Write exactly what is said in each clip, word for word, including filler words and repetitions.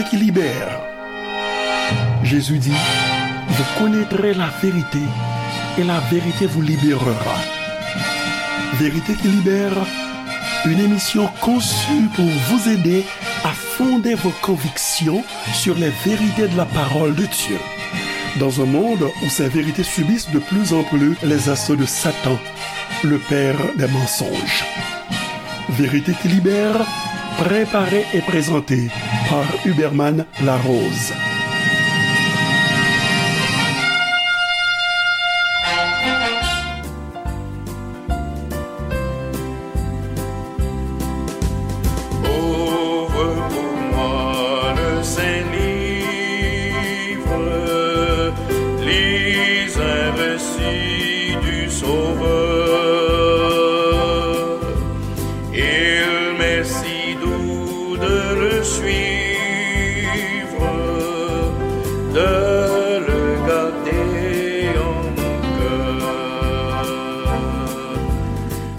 qui libère. Jésus dit, vous connaîtrez la vérité et la vérité vous libérera. Vérité qui libère, une émission conçue pour vous aider à fonder vos convictions sur les vérités de la parole de Dieu. Dans un monde où ces vérités subissent de plus en plus les assauts de Satan, le père des mensonges. Vérité qui libère, préparée et présentée par Huberman Larose. Ouvre pour moi le Saint-Livre, lis un récit du Sauveur. Il m'est si doux de le suivre, de le garder en mon cœur.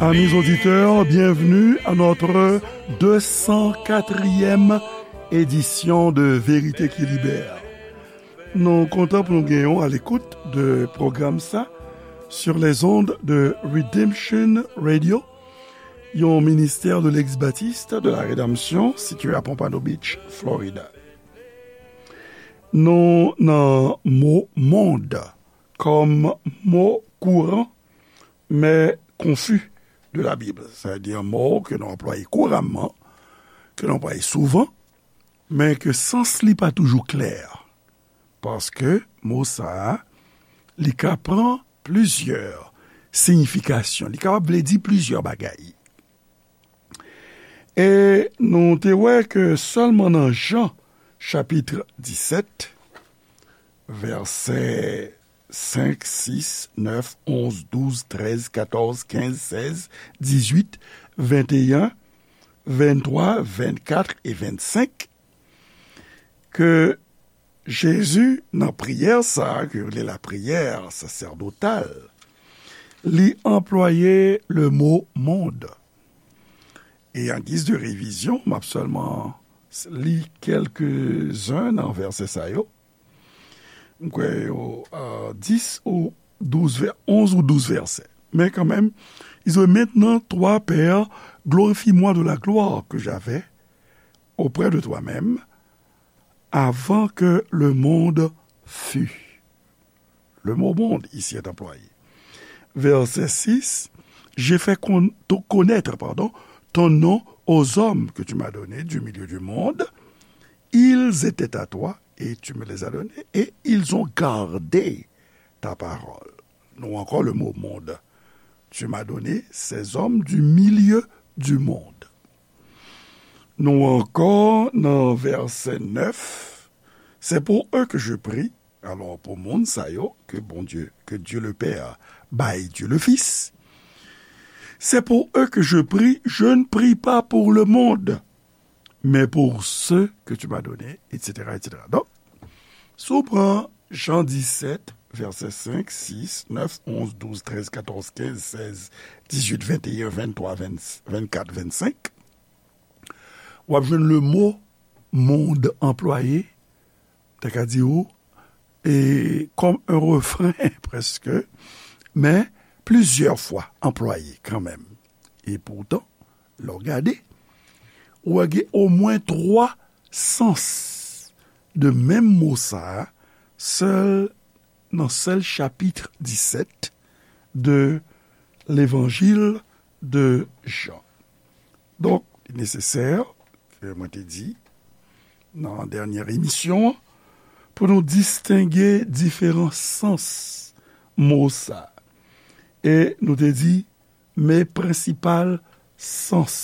Amis auditeurs, bienvenue à notre deux cent quatrième édition de Vérité qui libère. Nou kontan pou nou genyen w a l'écoute de pwogram sa sur les ondes de Redemption Radio, yon ministè de l'ex-baptiste de la rédemption situé à Pompano Beach, Florida. Nou nan mo mond kòm mo kouran, men konfi de la Bib. Sa vle di yon mo ke nou anplwaye kouramman, ke nou anplwaye souvan, men ke sans li pa toujou klè. Paske mo sa a, li ka pran plizyè siyifikasyon. Li kapab vle di plizyè bagay. E nou te wè ke sèlman nan Jan, chapit disèt, vèsè senk, sis, nèf, onz, douz, trèz, katòz, kenz, sèz, dizuit, venteyen, venntwa, vennkat e vennsenk, ke Jezi, nan priyè sa a, ke yo rele lapriyè sasèdotal, li anplwaye le mo mond. E an giz de revizyon, m ap sèlman li kèlkezen nan vèsè sa yo. M kwè yo, euh, dis ou douz vè-, onz ou douz vèsè. Men kanmenm, ils ont maintenant, toi, Père, glorifie-moi de la gloire que j'avais auprès de toi-même avant que le monde fût. Le mot monde ici est employé. Verset six, j'ai fait con-, ton-, connaître, pardon, ton nom aux hommes que tu m'as donnés du milieu du monde. Ils étaient à toi et tu me les as donnés et ils ont gardé ta parole. Nou ankò le mot monde. Tu m'as donné ces hommes du milieu du monde. Nou ankò nan vèsè nèf. C'est pour eux que je prie. Alò, pou moun sa yo, ke Bondye, ke Dieu le Père bay Dieu le Fils. C'est pour eux que je prie, je ne prie pas pour le monde, mais pour ceux que tu m'as donnés, et cetera, et cetera. Donk, si w pran Jan disèt, vèsè senk, sis, nèf, onz, douz, trèz, katòz, kenz, sèz, dizuit, venteyen, venntwa, ven, vennkat, vennsenk, w ap jwenn le mo mond anplwaye, ta ka di ou, e, kòm un refren, prèske, men plizyè fwa anplwaye kanmenm. E poutan, lè w gade, ou wè gen omwen twa sans de menm mo sa a, sèl, nan sèl chapit disèt de Levanjil de Jan. Donk, li nesesè, ke mwen te di nan dènyè emisyon an, pou nou distenge diferan sans mo sa. E nou te di, men prensipal sans,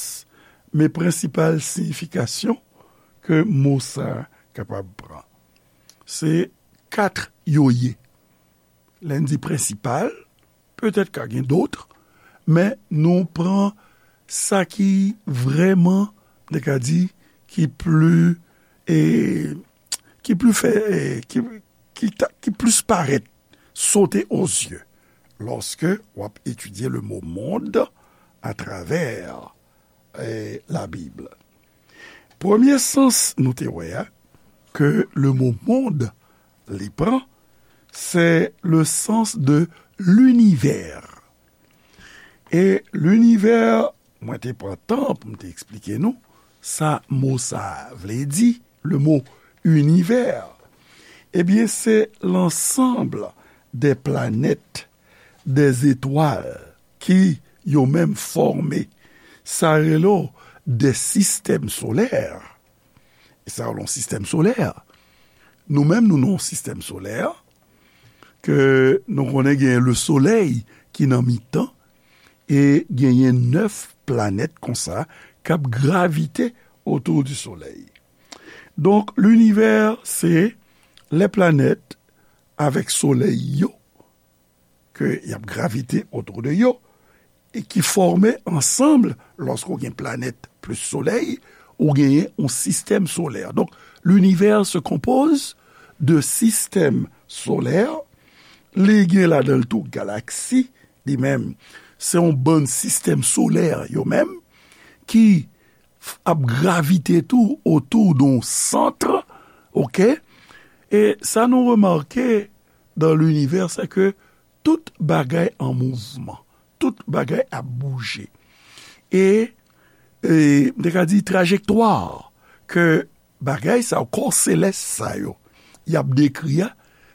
men prensipal siyifikasyon ke mo sa kapab pran. Se kat yo ye. Lè n di prensipal, petèt ka gen dòt, men nou pran sa ki vrèman, nou ka di, ki pli, e, ki pli fè, e, ki, ki ta, ki plis parèt, sauter aux yeux, lòske w ap etidye le mo mond atravè, e, la Bib. Premye sans nou te wè a, ke le mo mond li pran, se le sans de l'univers. E linivè, mwen te pran tan pou m te eksplike nou sa mo sa a vle di, le mot univers. Ebyen, se l'ensemble des planètes, des étoiles, ki yo menm fòme sa rele w de sistèm solè. E sa rele yon sistèm solè. Nou menm, nou nan yon sistèm solè ke nou konnen genyen le solèy ki nan mitan e genyen nèf planèt konsa k ap gravite otou di solèy. Donk, linivè, se lè planèt avèk solèy yo ke y ap gravite otou de yo e ki fòme ansanm, lòske w gen planèt plis solèy, ou genyen yon sistèm solè. Donk, linivè se konpoze de sistèm solè, li gen ladan l tou galaksi, li menm, se yon bann sistèm solè yo menm, ki ap gravite tou otou de yon sant, oke? E sa nou remake dan linivè, se ke tout bagay an mouvman, tout bagay ap bouje. E, e, m te ka di trajektwa ke bagay sa yo, kò selès sa yo, y ap dekri a,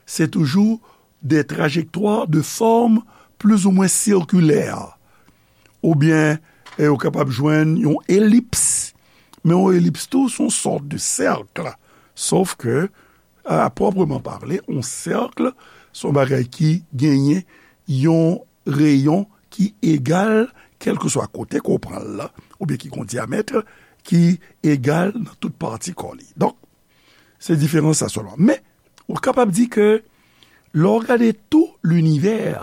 se toujou de trajektwa de fòm plizoumwen sikilè. Oubyen, e, ou kapab jwenn yon elips. Men yon elips tou, se yon sòt de sèk. Sof ke, a pwòpman pale, yon sèk, se yon bagay ki genyen yon reyon ki egal, kèlkeswa kote ke w pran l la, oubyen ki gen yon dyamèt ki egal nan tout pati kò li. Donk, se diferans sa sèlman. Men, ou kapab di ke lè w gade tou linivè,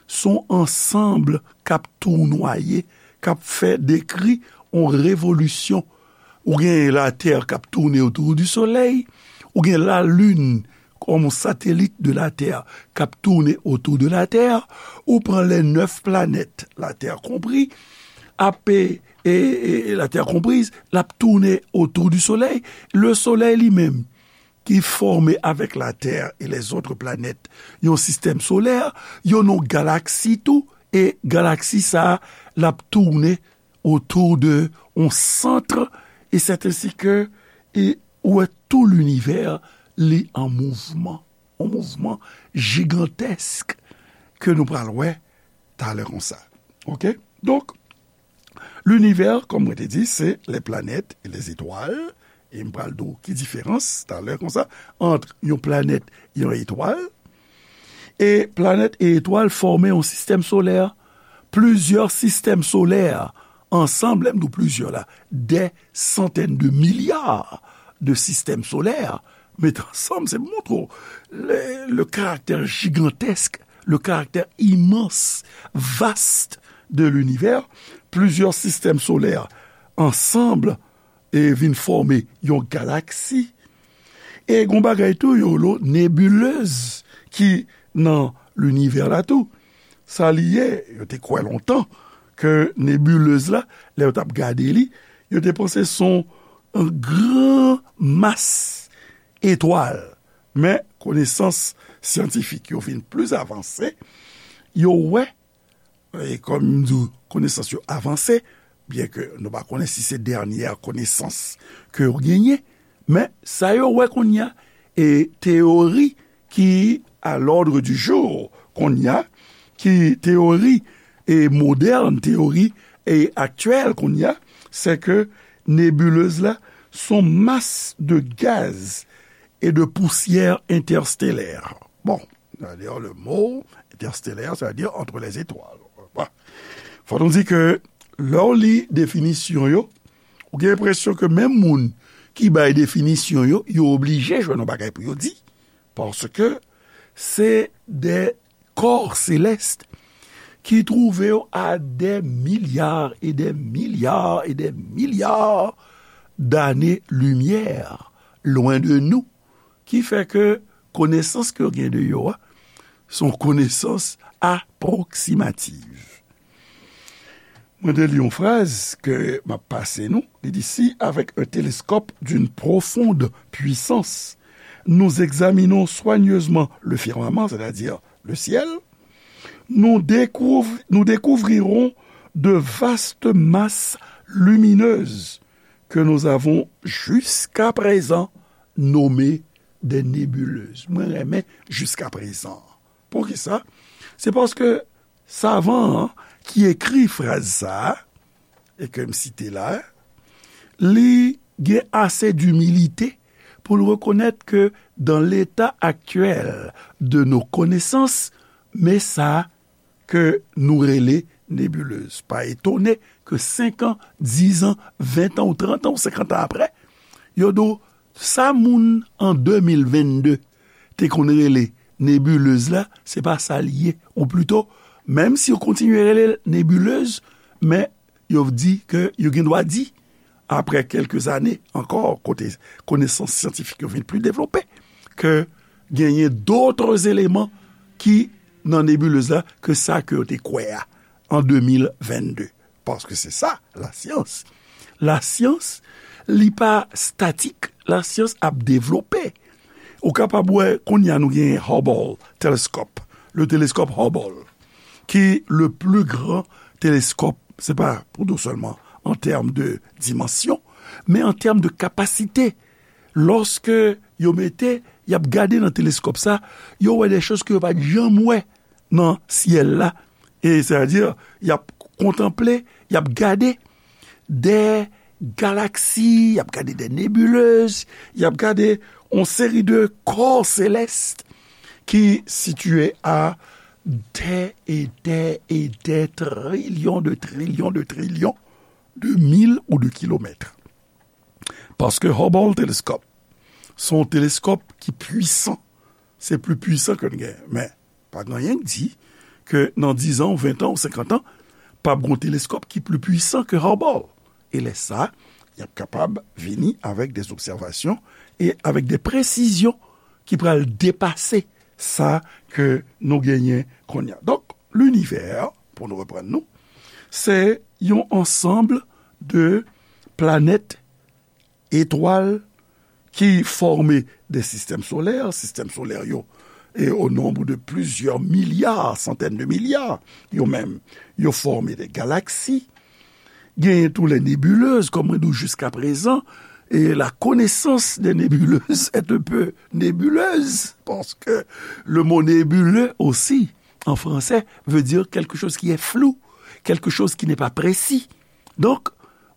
se yon ansanm k ap tounwaye, k ap fè dekri yon revolisyon. Ou gen Latè k ap tounen otou di Solèy, ou gen Lalin kòm yon satelit de Latè k ap tounen otou de Latè, ou pran les neuf planètes, Latè konpri, ap, e, e, e, Latè konpriz, l ap tounen otou di Solèy. Le Solèy li menm, ki fòme avèk Latè e les autres planètes yon sistèm solè, yo nan yon galaksi tou, e galaksi sa a, l ap tounen otou de yon sant, e sèt ensi ke, e ou wè tou linivè, li an mouvman, yon mouvman jigantèsk ke nou pral wè talè konsa. Oke? Donk, linivè, kòm mwen te di, se les planètes et les étoiles. E m pral di w ki diferans talè konsa ant yon planèt e yon etwal. E planèt e etwal fòme yon sistèm solè. Plizyè sistèm solè ansanm, lè m di w plizyè la, des centaines de milliards de systèmes solaires met ansanm, se pou montre w le, le caractère gigantesque, le caractère immense, vaste de l'univers. Plizyè sistèm solè ansanm e vin fòme yon galaksi. E gon bagay tou yo rele nebilez ki nan linivè la tou. Sa li ye, yo te kwè lontan ke nebilez la, lè yo t ap gade li, yo te panse se yon gran mas etwal. Men, konesans syantifik yo vin plis avanse, yo wè, e kòm m di w, konesans yo avanse, byen ke nou pa konnen si se dènyè konesans ke yo genyen, men sa yo wè kounye a, e teyori ki à l'ordre du jour kounye a, ki teyori e modèn, teyori e aktyèl kounye a, se ke nebilez la se yon mas de gaz e de pousyè entèstelè. Bon, d'ailleurs, le mot interstellaire, ça veut dire entre les étoiles. Bon. Fò nou di ke lè w li definisyon yo, ou gen enpresyon ke menm moun ki bay definisyon yo, yo oblije jwenn yon bagay pou yo di. Paske se de corps célestes ki twouve yo à des milliards et des milliards et des milliards d'années-lumière, loin de nous, ki fè ke konesans ke yo gen de yo a, se yon konesans apwoksimativ. Mwen te li yon fraz ke m ap pase nou. Li di, si, avec un télescope d'une profonde puissance, nous examinons soigneusement le firmament, c'est-à-dire le ciel, nous découv-, nous découvrirons de vastes masses lumineuses que nous avons jusqu'à présent nommées des nébuleuses. Mwen renmen jusqu'à présent. Poukisa? Se paske savan an ki ekri fraz sa a, e ke m site la, li gen ase dimilite pou l rekonèt ke dans l'état actuel de nos connaissances, men sa ke nou rele nebilez. Pa etone ke senk an, diz an, ven an ou trant an ou senkant an apre, yo di w sa moun an de mil vennde te konn rele nebilez la, se pa sa l ye. Ou plito, menm si yo kontinye rele l nebilez, men yo di ke yo gen dwa di, apre kèlke zane ankò, kote konesans syantifik yo vin pli devlope, ke genyen dotre eleman ki nan nebilez la ke sa ke yo te kwè a an de mil vennde. Paske se sa, lasyans. Lasyans, li pa statik, lasyans ap devlope. Ou kapab wè, kounye a nou gen Hubble telescope, le télescope Hubble, ki le plus grand télescope, se pa pou di w sèlman an tèm de dimansyon, men an tèm de kapasite. Lòske yo mete, y ap gade nan teleskòp sa, yo wè de choz ke yo pa t janm wè nan syèl la. E sètadi, y ap kontanple, y ap gade de galaksi, y ap gade de nebilez, y ap gade yon seri de kò selès ki sitiye a de e de e de trilyon de trilyon de trilyon de mil ou de kilomèt. Paske Hubble teleskòp, se yon teleskòp ki pwisan. Se pli pwisan ke n gen. Men, pa gen anyen k di ke nan diz an, ou ven an, ou senkant an, p ap gen yon teleskòp ki pli pwisan ke Hubble. E lè sa, y ap kapab vini avèk de obsèvasyon e avèk de presizyon ki pral depase sa ke nou genyen kounye a. Donk, linivè, pou nou reprann nou, se yon ansanm de planèt, etwal ki fòme de sistèm solè, sistèm solè yo, e o nonb de plizyè milya, santèn de milya, yo menm, yo fòme de galaksi. Genyen tou les nébuleuses, kòm mwen di w jiskaprezan, e la connaissance des nébuleuses est un peu nébuleuse, parce que le mot nébuleux aussi, en français, veut dire quelque chose qui est flou, quelque chose qui n'est pas précis. Donc,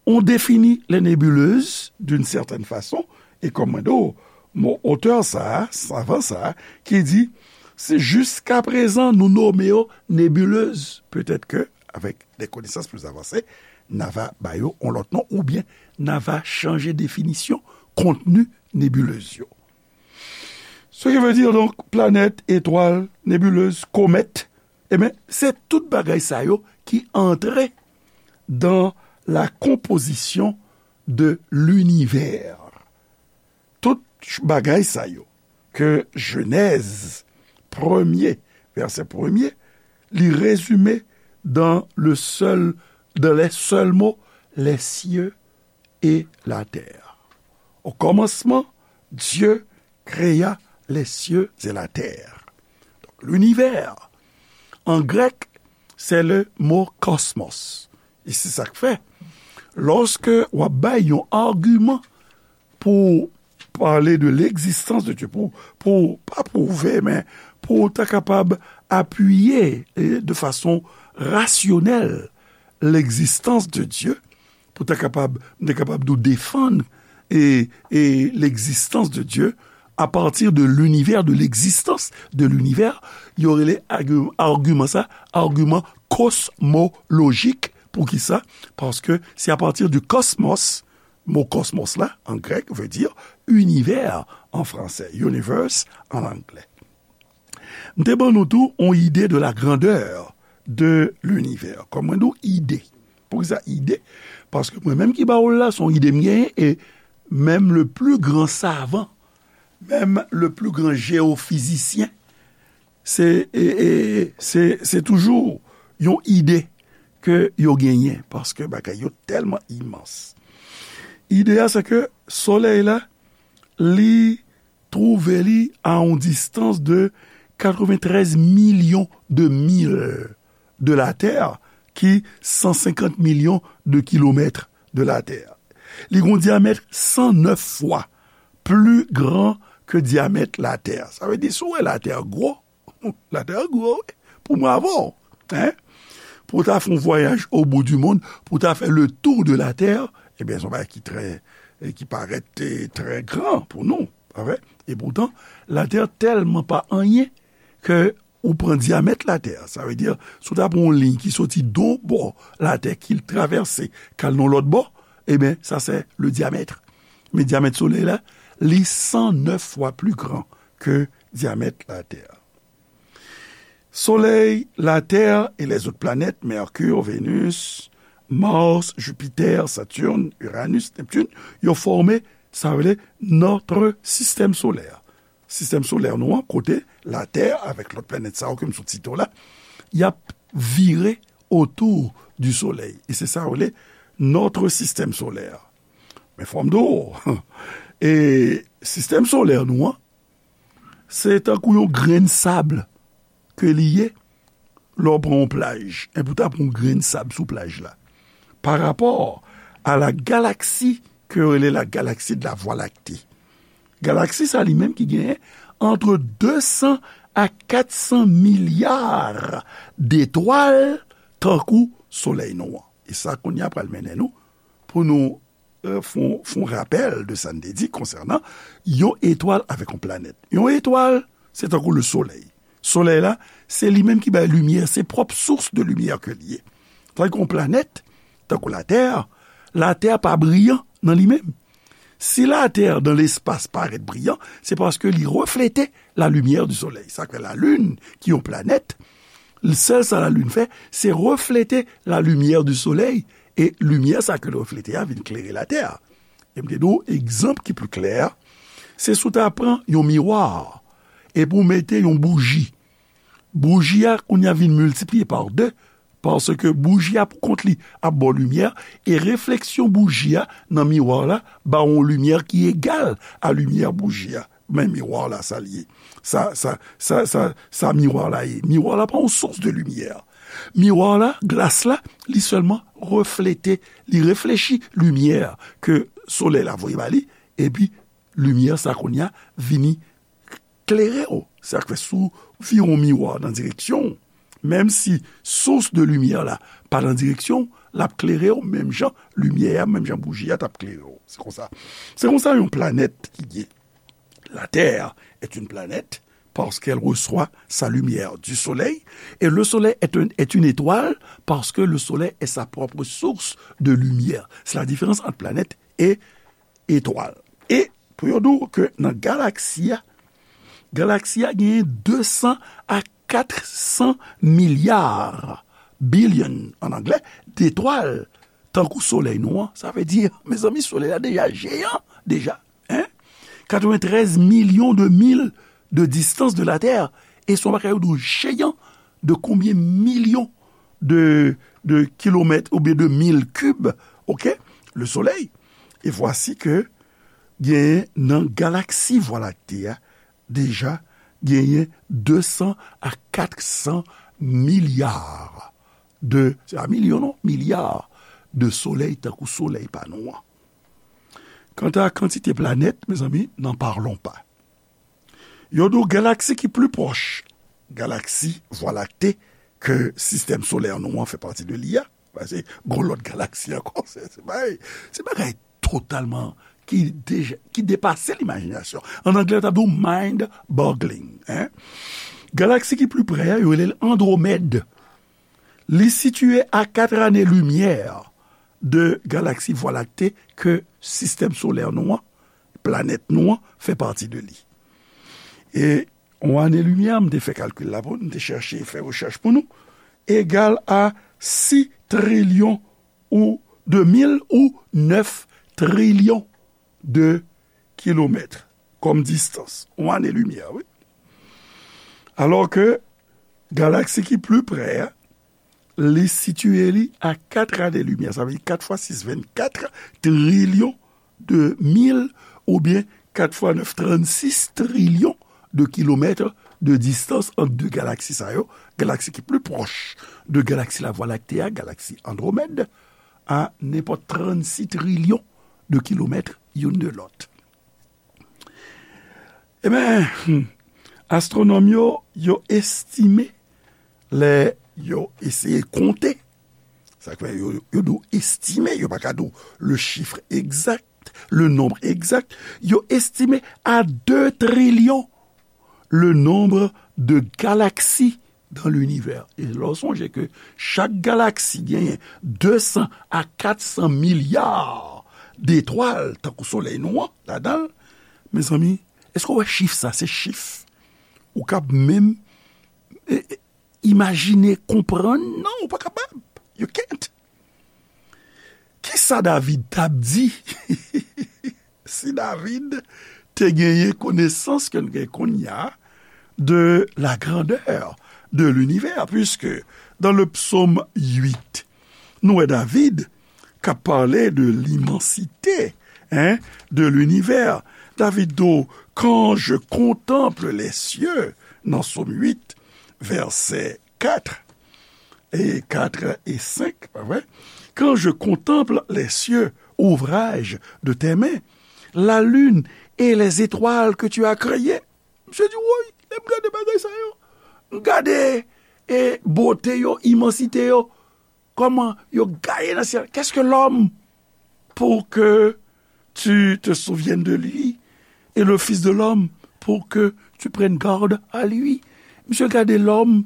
on définit les nébuleuses d'une certaine façon, e kòm mwen di w, mo otè sa a, savan sa a, ki di, si jiskaprezan nou nome yo nebilez, petèt ke, avèk de konesans pli avanse, n a va ba yo yon lòt non, oubyen n a va chanje definisyon kontni nebilez yo. Ce qui veut dire, donc, planèt, etwal, nebilez, komèt, ebyen, se tout bagay sa yo ki antre dans la composition de l'univers. Tout bagay sa yo ke Jenèz premye, vèsè premye, li rezime dans le seul, dans les seuls mots, les cieux et la terre. Au commencement, Dieu créa les cieux et la terre. Donc, l'univers, en grec, c'est le mot cosmos. E se sa k fè, lòske w ap bay yon agiman pou pale de l'existence de Dieu, pou, pou, pa pwouve, men pou w ta kapab apiye, e, de fason rasyonèl, l'existence de Dieu, pou ta kapab, m te kapab di w defann, e, e l'existence de Dieu à partir de l'univers, de l'existence de l'univers, yo rele agiman sa agiman kosmolojik. Poukisa? Paske se apatir di kosmos, mo kosmos la, an grèk, vle di univè an fransè, universe an anglè. M te ban nou tou yon ide de la grandeur de l'univers. Kòm mwen di w, ide. Poukisa ide? Paske mwen menm ki ba w l la, se yon ide m genyen, e menm le plus grand savant, menm le plus grand géophysicien, se, e, e, se, se toujou yon ide ke yo genyen, paske bagay yo tèlman imans. Ide a, se ke Solèy la, li twouve li a yon distans de katrevenntrèz milyon de mil de Latè, ki san senkant milyon de kilomèt de Latè. Li gen yon dyamèt san nèf fwa pli gran ke dyamèt Latè. Sa vle di, si w wè Latè gwo, Latè gwo, wi. Pou mwen avè w, hein? Pou w ta fè yon vwayaj au bout du monde, pou w ta fè le tour de la Terre, ebyen, se yon bagay ki trè, ki parèt, eh, trè gran pou nou, pa vre? Epoutan, Latè tèlman pa anyen ke ou pran dyamèt Latè. Sa vle di, si w ta pran yon liy ki soti d on bò Latè, ki travèse, k al nan lòt bò, ebyen, sa se le diamètre. Men dyamèt Solèy la, li san nèf fwa pli gran ke dyamèt Latè. Solèy, Latè e lèzòt planèt, Mèkir, Venus, Mars, Jupiter, Saturne, Uranus, Neptune, yo fòme, sa rele, notre système solaire. Sistèm solè nou an, kote Latè avèk lòt planèt sa yo ke m sot site w la, y ap vire autour du Soleil. E se sa yo rele notre système solaire. Men fò m di w, e sistèm solè nou an, se tankou yon grenn sab ke li ye lè w pran yon plaj. Enben, ou ta pran yon grenn sab sou plaj la. Parapò a la galaksi ke yo rele la galaksi de la Vwa Lakte. Galaksi sa li menm ki genyen antre de san a kat san milya detwal tankou Solèy nou an. E sa kounye a pral mennen nou pou nou, eh, fè yon, fè yon rapèl de sa n te di konsènan yon etwal avèk yon planèt. Yon etwal, se tankou le Solèy. Solèy la, se li menm ki bay limyè, se pwòp sous de limyè ke li ye. Tandis yon planèt, tankou Latè, Latè pa briyan nan li menm. Si Latè dan lespas parèt briyan, se paske li reflete la lumière du Soleil. Sa k fè Lalin, ki yon planèt, sèl sa Lalin fè, se reflete la lumière du Soleil, e limyè sa ke l reflete a vin klere Latè. E m te di w, egzanp ki pli klè, se si w ta pran yon miwa, epi w mete yon bouji. Bouji a, kounye a, vin miltipliye pa de, paske bouji a, pou kont li, ap ba w limyè, e refleksyon bouji a nan miwa la ba w yon limyè ki egal a limyè bouji a. Men miwa la, sa l ye. Sa, sa, sa, sa, sa miwa la ye. Miwa la pa yon sous de limyè. Miwa la, glas la, li sèlman reflete, li reflechi limyè ke solèy la voye ba li, epi limyè sa kounye a vini klere w. Sa k fè si w vire yon miwa nan direksyon w, menm si sous de limyè la pa nan direksyon w, l ap klere w menm jan limyè a, menm jan bouji a t ap klere w. Se konsa. Se konsa yon planèt ki ye. La Terre est une planète parce qu'elle reçoit sa lumière du soleil, et le soleil est un, est une étoile parce que le soleil est sa propre source de lumière. C'est la différence entre planète et etwal. E pou yo di w ke nan galaksi a, galaksi a genyen de san a kat san milya, billion an anglè, detwal, tankou solèy nou an. Sa vle di, mezanmi, solèy la deja jeyan, deja, hein? Katrevenntrèz milyon de mil de distance de la Terre. E se yon bagay yo di w jeyan de konbyen milyon de, de kilomèt oubyen de mil kib, oke? Le Soleil. E vwasi ke genyen nan galaksi Vwa Lakte a, deja genyen de san a kat san milya de, se pa milyon non, milya de solèy tankou solèy pa nou an. Kanta kantite planèt, mezanmi, n'en parlons pas. Yo di w galaksi ki pli pwòch galaksi Vwa Lakte ke sistèm solè nou an fè pati de li a, paske gon lòt galaksi ankò, se, se bagay, se bagay totalman ki deja, ki depase limajinasyon. An anglè, yo t ap di w mind-boggling, hein? Galaksi ki pli pre a, yo rele l Andwomèd. Li sitiye a kat ane limyè de galaksi Vwa Lakte ke sistèm solè nou an, planèt nou an, fè pati de li. E yon ane limyè, m te fè kalkil la pou nou, m te chèche fè rechèch pou nou, egal a sis trilyon ou de mil ou nèf trilyon de kilomèt kòm distans. Yon ane limyè, wi. Alò ke galaksi ki pli pre a, li sitiye li a kat ane limyè. Sa vle di kat fwa sis, vennkat trilyon de mil, oubyen kat fwa nèf, trannsis trilyon de kilomèt de distans ant de galaksi sa yo. Galaksi ki pli pwòch de galaksi Lavwa Lakte a, galaksi Andwomèd, a nenpòt trannsis trilyon de kilomèt youn de lòt. Ebyen, astwonòm yo, yo estime, lè yo eseye konte, sa k fè yo, yo di w estime, yo pa ka di w le chiffre exact, le nombre exact, yo estime a de trilyon le nombre de galaksi dans l'univers. E lè w sonje ke chak galaksi genyen de san a kat san milya detwal, tankou Solèy nou an, ladan l, mezanmi, èske w wè chif sa? Se chif ou kab menm, e, e, imajine, konprann? Non, ou pa kapab. You can't. Kisa David t ap di si David te genyen konesans ke n gen kounye a de la grandeur de l'univers, puisque dans le psaume huit, nou wè David k ap pale de l'immensité, hein, de l'univers. David di w, quand je contemple les cieux, nan Sòm uit, vèsè kat e kat e senk, pa vre? Quand je contemple les cieux, ouvrage de tes mains, la lune et les étoiles que tu as créées. Misye di, woy, lè m gade bagay sa yo, m gade, e, bote yo, imansite yo, kòman yo gaye nan syèl. Qu'est-ce que l'homme pour que tu te souviennes de lui, et le Fils de l'homme pour que tu prennes garde à lui? Misye gade lòm,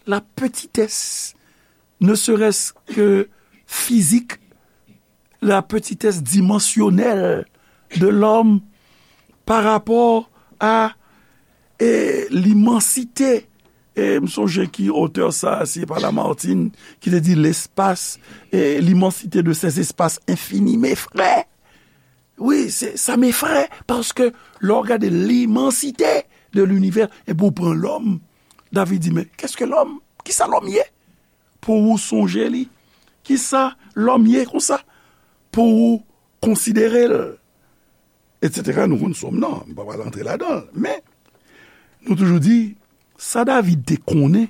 la petitesse, ne serait-ce que physique, la petitesse dimensionnelle de l'homme par rapport à, e, l'immensité. E m sonje ki otè sa, se pa Lamartine, ki te di l'espace, e, l'immensité de ces espaces infinis. Mes frères, wi, se, ça m'effraie, paske lè w gade l'immensité de l'univers, epi w pran lòm, David di, men, qu'est-ce que l'homme? Kisa lòm ye? Pou ou sonje li? Kisa lòm ye konsa? Pou ou konsidere l? Etsetera, nou konn Sòm nan, m pa pral antre ladan l. Men, nou toujou di, sa David te konnen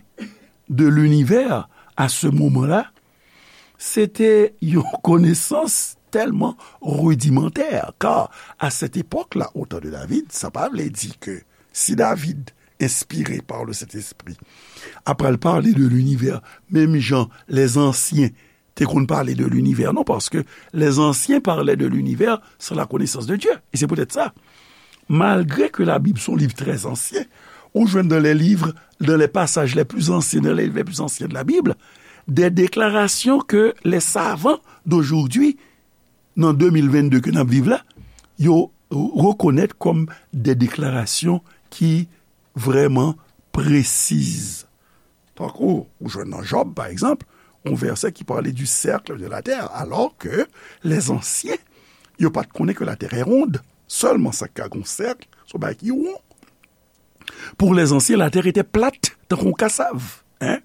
de linivè a se moman la, se te yon konesans tèlman ridimantè, car à cette époque-là, au temps de David, sa pa vle di ke si David, inspiré par le Saint-Esprit, ap pral pale de linivè, menm jan lèzansyen te konn pale de linivè, non, paske lèzansyen pale de linivè san la konesans de Dye. E se poutèt sa, malgre ke Labib se yon liv trè ansyen, ou jwenn dans les livres, dans les passages les plus anciens, dans les livres les plus anciens de la Bible, des déclarations que les savants d'aujourd'hui, nan de mil vennde ke n ap viv la, yo rekonèt kòm de deklarasyon ki vrèman presiz. Tankou, ou jwenn nan Jòb, pa egzanp, yon vèsè ki pale du cercle de la terre, alors que les anciens, yo pa t konnen ke la terre est ronde. Sèlman sa k ka gon sèk, se yon bagay ki won. Pour les anciens, la terre était plate, tankou yon kasav, hein?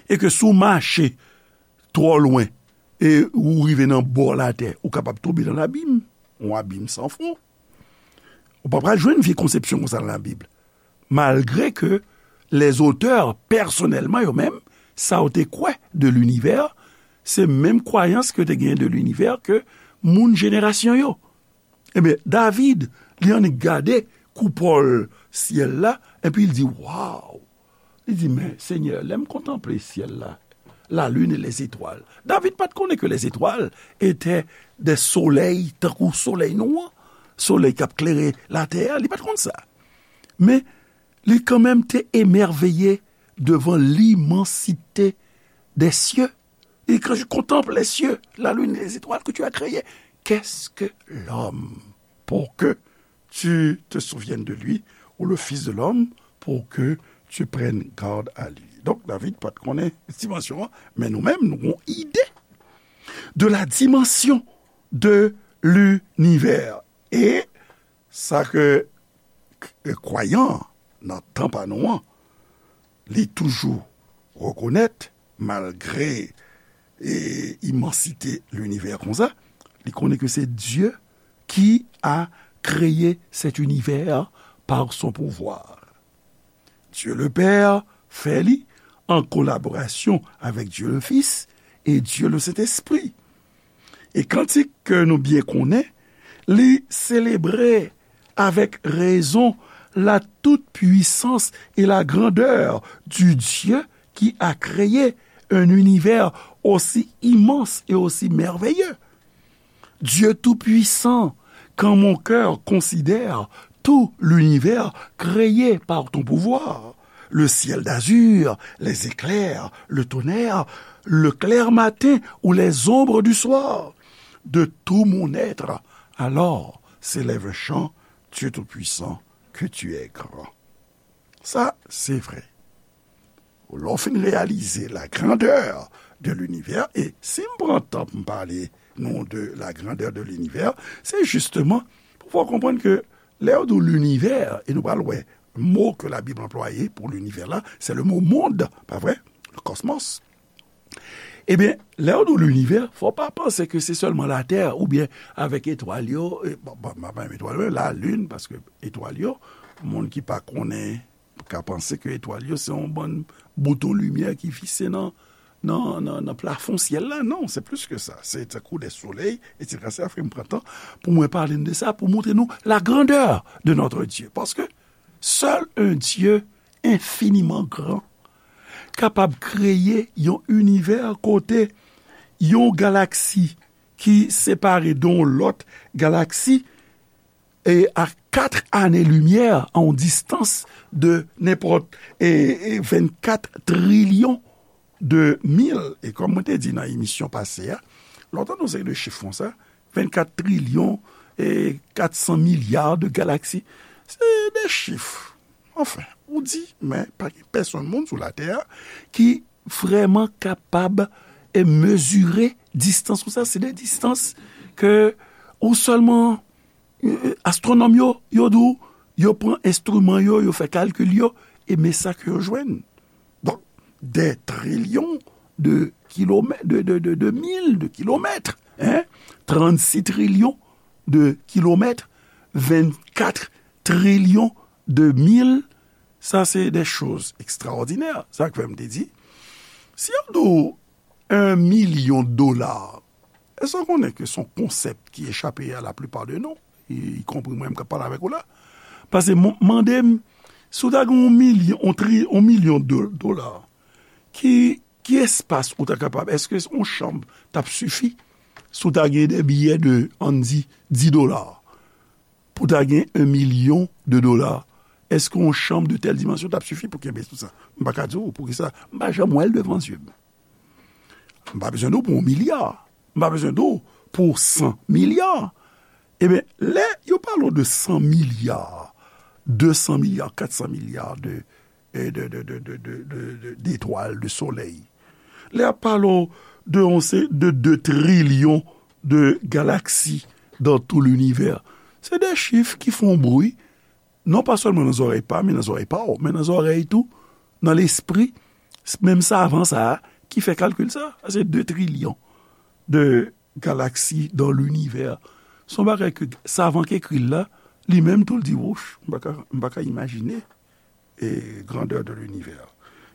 E ke si w mache twò lwen, e ou rive nan bò latè, ou kapab tonbe nan labim, yon abim san fon. Ou pa pral jwenn vye konsepsyon konsa nan Labib. Malgre ke lèzotè, pèsonèlman, yo menm, sa yo te kwè de linivè, se menm kwayans ke yo te genyen de linivè ke moun jenerasyon yo. Ebyen, David, li annik gade koupòl syèl la, epi l di, waw! Li di, men, Senyè, lè m kontanple syèl la, la lune et les étoiles. David pa t konnen ke les étoiles étaient des soleils, tankou solèy nou an, solèy k ap klere latè a, li pa t konn sa. Men, li kanmenm te emèveye devan l'immensité des cieux. Et quand je contemple les cieux, la lune et les étoiles que tu as créées, qu'est-ce que l'homme pour que tu te souviennes de lui, ou le Fils de l'homme pour que tu prennes garde à lui? Donk, David pa t konnen dimansyon an, men nou menm, nou gon ide de la dimension de l'univers. E sa ke k-, kwayan nan tan pa nou an, li toujou rekonèt, malgre e, imansite linivè konsa, li konnen ke se Dieu qui a créé cet univers par son pouvoir. Dieu le Père fè li an kolaborasyon avèk Dieu le Fils e Dieu le Saint-Esprit. E kantik ke nou byen konnen, li selebre avèk rezon la toute puissance et la grandeur du Dieu qui a créé un univers aussi immense et aussi merveilleux. Dieu tout-puissant, quand mon cœur considère tout l'univers créé par ton pouvoir, le ciel d'azur, les éclairs, le tonnerre, le clair matin ou les ombres du soir, de tout mon être, alors s'élève un chant, Dieu tout-puissant, que tu es grand. Sa, se vre. Lè w fin reyalize la grandeur de l'univers, e si m pran tan pou m pale nou de la grandeur de l'univers, se jisteman pou fè w konprann ke lè yo di w linivè, e nou pral wè mo ke Labib anplwaye pou linivè la, se le mo monde, pa vre? Le cosmos. Ebyen, lè yo di w linivè, fò w pa panse ke se sèlman Latè oubyen avèk etwal yo, e, bon, bon, m pa menm etwal yo, lalin, paske etwal yo, moun ki pa konnen, ka panse ke etwal yo se yon bann bouton limyè ki fikse nan, nan, nan, nan plafon syèl la. Non, se plis ke sa. Se tankou de solèy, etsetera. Sa fè m pran tan pou mwen pale n de sa, pou montre nou la grandeur de notre Dieu. Paske seul un Dieu infiniment grand kapab kreye yon inivè kote yon galaksi ki separe de yon lòt galaksi e a kat ane limyè, a yon distans de nenpòt e, e vennkat trilyon de mil. E kòm mwen te di nan emisyon pase a, lè w tande yon seri de chif konsa, vennkat trilyon e kat san milya de galaksi, se de chif. Anfen, ou di, men pa gen pèsonn moun sou latè a ki vrèman kapab e mezire distans konsa. Se de distans ke ou sèlman, e, e, astwonòm yo, yo di w, yo pran enstriman yo, yo fè kalkil yo, e men sa ke yo jwenn. Donk, des trillions de kilomètres, de, de, de, de mil de kilomètres, hein? Trannsis trilyon de kilomètres, vennkat trilyon de mil, sa se de choz ekstraòdinè. Sa k fè m te di, si yo di w un million de dollars, èske w konnen ke se yon konsèp ki echape a la plupart de nous, y, y compris mwen menm k ap pale avèk ou la? Paske m, mande m, si w ta gen yon milyon, yon tri, yon milyon de dola, ki, ki espas ou ta kapab, èske yon chanm t ap sifi si w ta gen de biyè de, ann di, dis dola? Pou ta gen un million de dola, èske yon chanm de tèl dimansyon t ap sifi pou kenbe tout sa? M pa ka di w poukisa. M pa janm wè l devan zye m. M pa bezwen di w pou yon milya. M pa bezwen di w pou san milya. Ebyen, lè yo pale w de san milya, de san milya, kat san milya de, e, de, de, de, de, de, de, de, detwal, de solèy. Lè y ap pale w de yon se, de de trilyon de galaksi dans tout l'univers. Se de chif ki fè yon bri, non pa sèlman nan zòrèy pa m, men nan zòrèy pa w, men nan zòrèy tou, nan lespri, menm savan sa a ki fè kalkil sa a. Se de trilyon de galaksi dans l'univers. Se yon bagay ke savan k ekri l la, li menm tou l di, wouch, m pa ka, m pa ka imajine e grandeur de l'univers.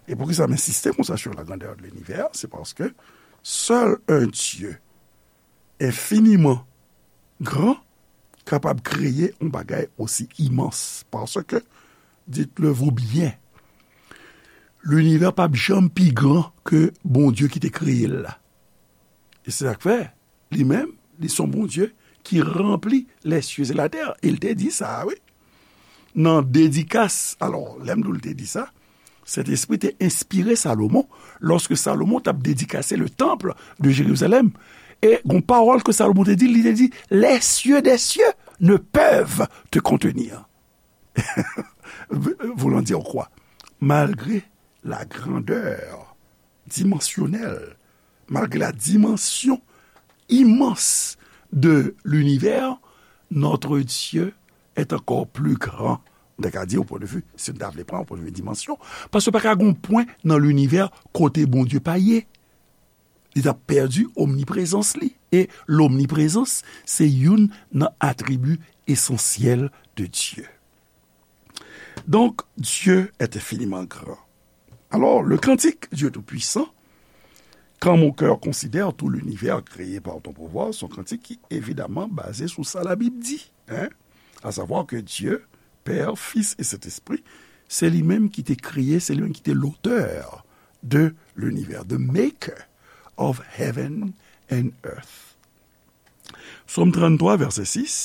E poukisa m ensiste konsa sur la grandeur de l'univers? Se paske seul un Dieu infiniment grand kapab kreye yon bagay osi imans. Paske, dites-le-vous bien, linivè p ap janm pi gran ke Bondye ki te kreye l la. E se sa k fè, li menm, li se yon Bondye ki ranpli les cieux et la terre. E l te di sa, wi. Nan dedikas, alò, lè m di w l te di sa, Sentespri te enspire Salomon, lòske Salomon t ap dedikase le temple de Jérusalem. E gon pawòl ke Salomon te di, li te di, les cieux des cieux ne peuvent te contenir. Voulant dire quoi? Malgré la grandeur dimensionnelle, malgré la dimension immense de l'univers, notre Dieu est encore plus grand M ta ka di, o pwen de vi, si n ta vle pran, o pwen de vi dimansyon, paske pa ka gen yon pwen nan linivè kote Bondye pa ye. Li t ap pèdi omniprezans li. E lomniprezans, se youn nan atribi esansyèl de Dieu. Donc, Dieu est infiniment grand. Alors, le cantique Dieu Tout-Puissant, quand mon cœur considère tout l'univers créé par ton pouvoir, se yon kantik ki evidaman baze sou sa Labib di, hein? À savoir que Dieu, Père, Fils et Saint-Esprit, se li menm ki te kreye, se li menm ki te l'auteur de l'univers, the maker of heaven and earth. Sòm tranntwa, vèsè sis,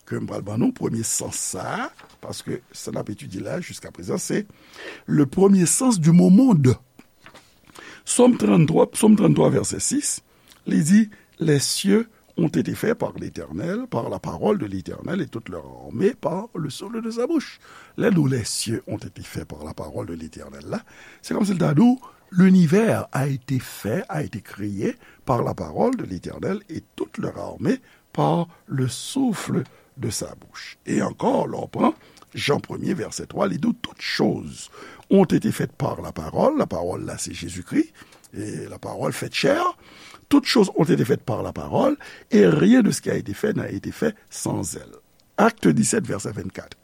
ke m pral ban nou, premye sans sa a, paske sa n ap etidye la jiska prezan, se le premier sens du mot monde. Sòm tranntwa, Sòm tranntwa, vèsè sis, li di, les cieux ont été faits par l'Éternel, par la parole de l'Éternel, et toute leur armée par le souffle de sa bouche. Lè nou, les cieux ont été faits par la parole de l'Éternel la, se kòmsi l ta di w, l'univers a été fait, a été créé par la parole de l'Éternel, et toute leur armée par le souffle de sa bouche. E ankò, lè w pran Jan premye, vèsè twa, li di w, toutes choses ont été faites par la parole. La parole, là, c'est Jésus-Christ. Et la parole faite chair. Toutes choses ont été faites par la parole, et rien de ce qui a été fait n'a été fait sans elle. Acte dix-sept, verset vingt-quatre.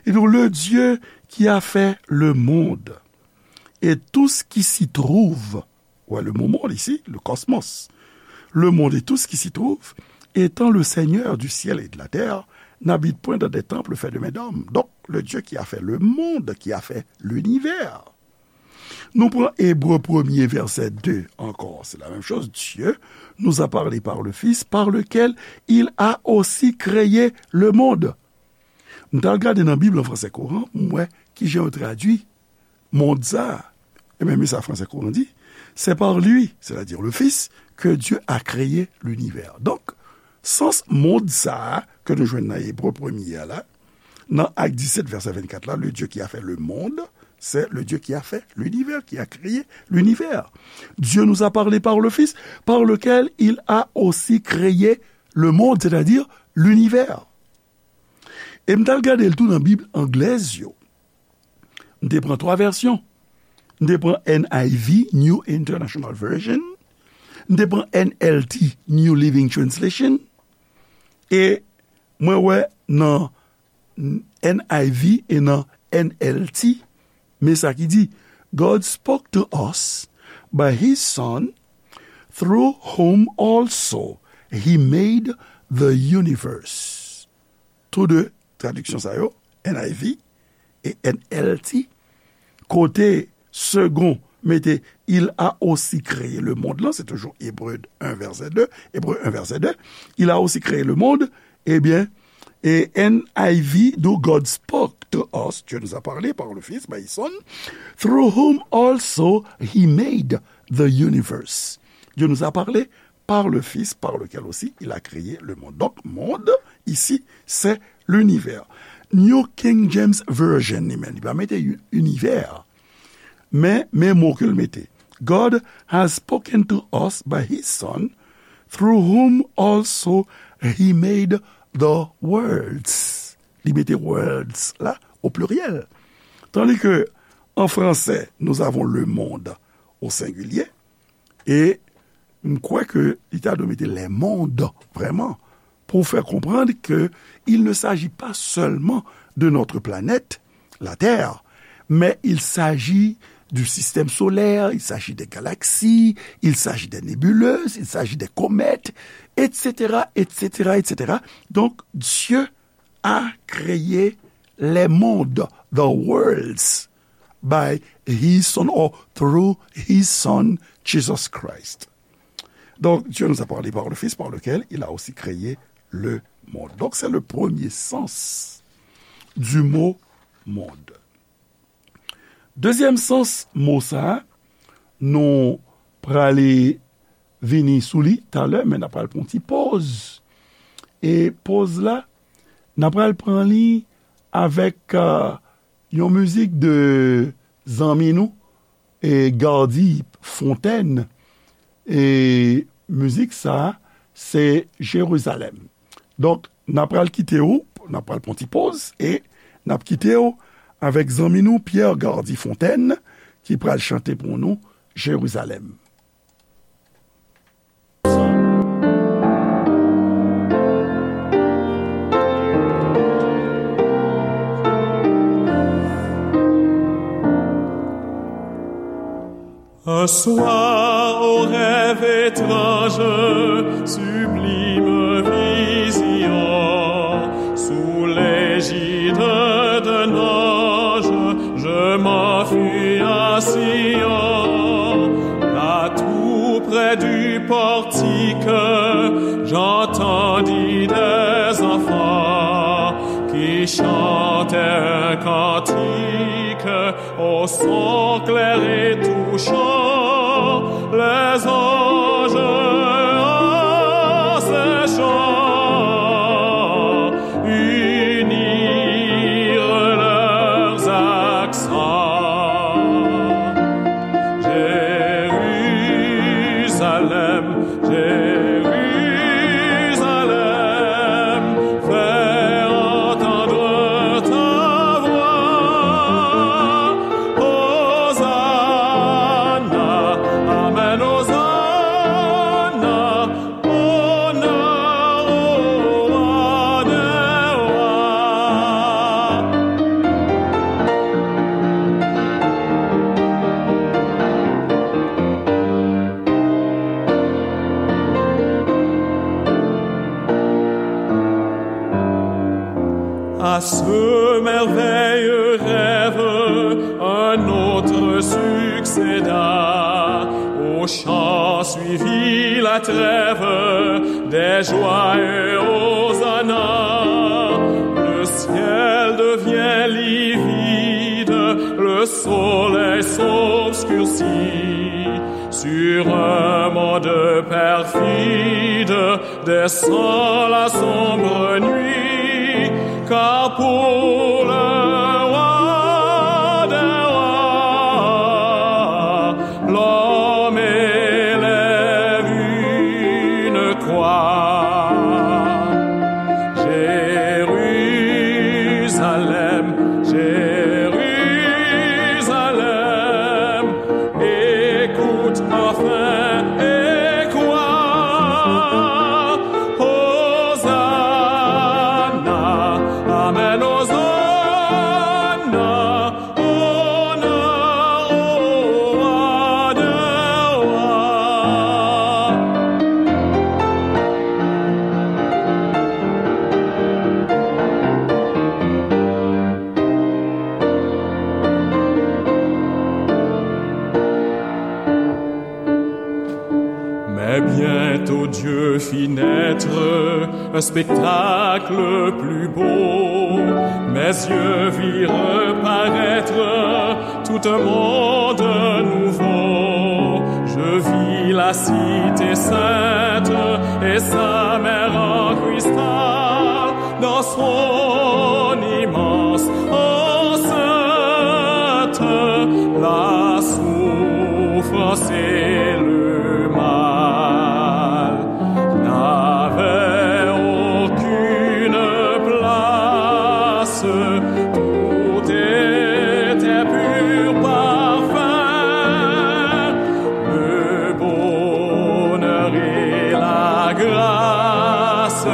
Et donc, le Dieu qui a fait le monde et tout ce qui s'y trouve, ouais, le mot monde ici, le cosmos, le monde et tout ce qui s'y trouve, étant le Seigneur du ciel et de la terre, n'habite point dans des temples faits de mains d'hommes. Donc, le Dieu qui a fait le monde, qui a fait l'univers. Nou pran Ebre premye, vèsè de ankò. C'est la même chose. Dieu nous a parlé par le Fils, par lequel il a aussi créé le monde. M t al gade nan Bib an fransè kouran, m wè kijan yo tradui mond sa a. Ebyen, men sa fransè kouran di, c'est par lui, c'est-à-dire le Fils, que Dieu a créé l'univers. Donk, sans mond sa a ke nou jwenn nan Ebre premye a la, nan Ak disèt, vèsè vennkat la, le Dieu qui a fait le monde, c'est le Dieu qui a fait l'univers, qui a créé l'univers. Dieu nous a parlé par le Fils, par lequel il a aussi créé le monde, c'est-à-dire l'univers. E m t al gade l tou nan Bib anglèz yo. M te pran twa vèsyon. M te pran N I V, New International Version. M te pran N L T, New Living Translation. E mwen wè nan N I V e nan N L T, men sa ki di, God spoke to us by his Son, through whom also he made the universe. Tou de tradiksyon sa yo, N I V e N L T, kote Segond mete, il a aussi créé le monde lan, se toujou Ebre un vèsè de, Ebre un vèsè de, il a aussi créé le monde, ebyen, e N I V, do God spoke to us, Dieu nous a parlé par le Fils, by his Son, through whom also he made the universe. Dieu nous a parlé par le Fils, par lequel aussi il a créé le monde. Donc, monde, ici, c'est l'univers. New King James Version, li menm, li pa mete univers. Men, men mo ke l mete. God has spoken to us by his Son, through whom also he made the worlds. Li mete worlds la au pluriel. Tandis que en français, nous avons le monde au singulier. E m kwè ke li ta dwe mete les mondes, vraiment, pour faire comprendre que il ne s'agit pas seulement de notre planète, la Terre, mais il s'agit du système solaire, il s'agit des galaxies, il s'agit des nébuleuses, il s'agit des comètes, et cetera, et cetera, et cetera. Donc, Dieu a créé les mondes, the worlds, by his Son or through his Son, Jesus Christ. Donc, Dieu nous a parlé par le Fils, par lequel il a aussi créé le monde. Donc, c'est le premier sens du mot monde. Dezyèm sans mo sa a, nou prale vini sou li talè, men n ap pral pran yon ti poz. E poz la, n ap pral pran li avèk, euh, yon mizik de zanmi nou, e Gardy Fontaine. E mizik sa a, se Jerizalèm. Donk, n ap pral kite w, n ap pral pran ti poz, e N ap kite w avèk zanmi nou Pierre Gardy Fontaine ki pral chante pou nou Jerizalèm. Un soir, au rêve étrange, sublime vision, sous l'égide d'un ange, je m'enfuis à Sion. Là, tout près du portique, j'entendis des enfants qui chantaient un cantique au son clair et touchant, les anges en ces chants unirent leurs accents. Jérusalem, Jérusalem, fais entendre ta voix. Hosanna, amen, Hosanna, honneur au roi des rois. À ce merveilleux rêve, un autre succéda. Au chant suivit la trêve des joyeux hosanna. Le ciel devient livide, le soleil s'obscurcit. Sur un monde perfide, descend la sombre nuit, car pour le roi des rois, l'homme élève une croix. Jérusalem, Jérusalem, écoute enfin et crois. Hosanna, amen, Hosanna, honneur au roi des rois. Mais bientôt Dieu fit naître un spectacle plus beau. Mes yeux virent paraître tout un monde nouveau. Je vis la cité sainte et sa mer en cristal. Dans son immense enceinte, la souffrance et le mal n'avaient aucune place. Tout était pur parfum, le bonheur et la grâce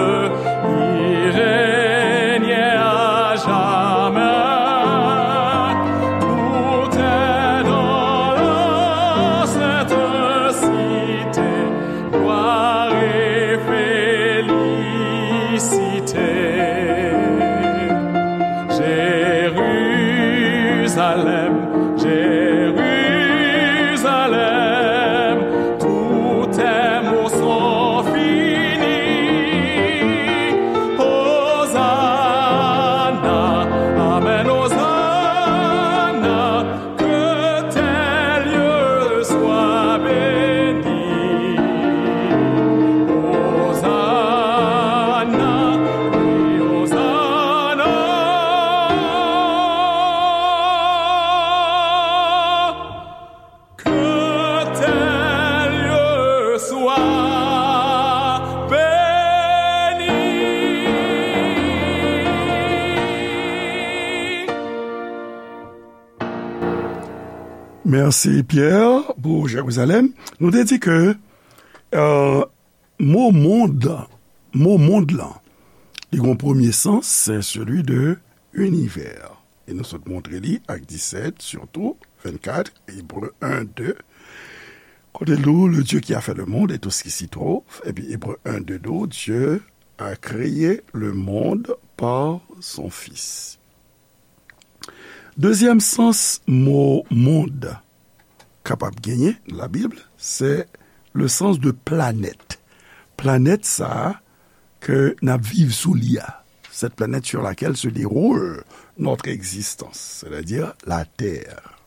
y régnaient à jamais. Tout est dans la sainte Mèsi, Pierre, pou Jerizalèm. Nou te di ke, euh, mo mond, mo mond lan, li gen yon premye sans, c'est celui de univers. E nou sot montre li ak disèt, sitou vennkat, Ebre en, de. Kote l di w, le Dieu qui a fait le monde et tout ce qui s'y trouve. Epi Ebre en, de di w, Dieu a créé le monde par son Fils. Dezyèm sans mo mond kapab genyen nan Labib, se le sens de planète. Planèt sa a ke n ap viv sou li a, cette planète sur laquelle se déroule notre existence, c'est-à-dire la Terre.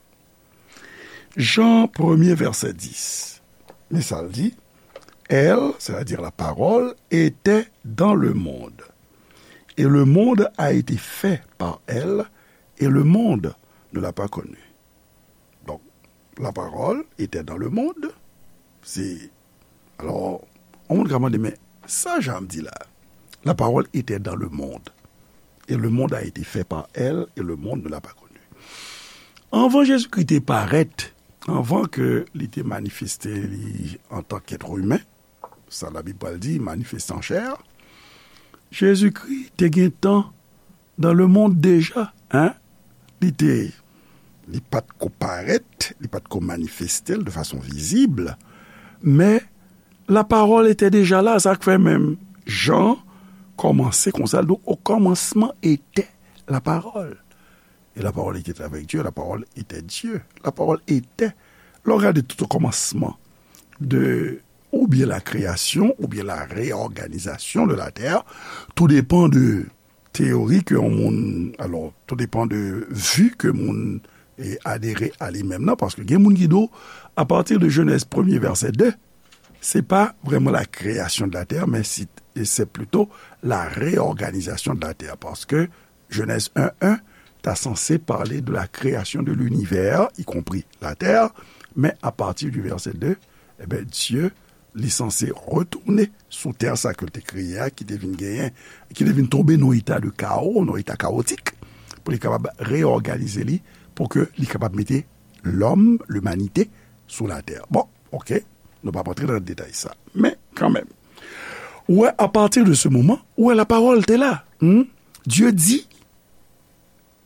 Jan premye, vèsè dis. Men sa l di, Elle, c'est-à-dire la parole, était dans le monde. Et le monde a été fait par elle, et le monde ne l'a pas connue. Donk, la parole était dans le monde. Se, alò, yon moun ka mande, men sa Jan di la? La parole était dans le monde, et le monde a été fait par elle, et le monde ne l'a pas connue. Anvan Jezikri te parèt, anvan ke li te manifeste li antanke èt imen, sa Labib pral di, manifeste an chè, Jezikri te gentan dans le monde déjà, hein? Li te, li pa t ko parèt, li pa t ko manifeste l de fason vizib, men la parole était déjà là, sa k fè menm Jan kòmanse konsa, l di, au commencement était la parole. Et la parole était avec Dieu, la parole était Dieu, la parole était. Lè w gade tout okòmansman de, oubyen la création, oubyen la réorganisation de la terre, tout dépend de teyori ke yon moun, alò, tout dépend de vi ke moun, e, adere a li menm nan, paske gen moun ki di w, à partir de Genèse premye vèsè de, se pa vrèman la création de la terre, men si, e se plito la réorganisation de la terre, paske Genèse un un ta sanse pale de la création de l'univers, y compris la terre, men à partir du verset deux, e ben, Dye, li sanse retounen sou tè sa ke l te kreye a, ki te vin genyen, ki te vin tonbe nan eta de kawo, nan eta kawotik, pou li kapab reòganize li, pou ke li kapab mete lòm, limanite, sou latè. Bon, oke, nou p ap antre nan detay sa. Men, kanmenm, ou wè, à partir de ce moment, ou wè, la parole te la. Hmm? Dieu dit.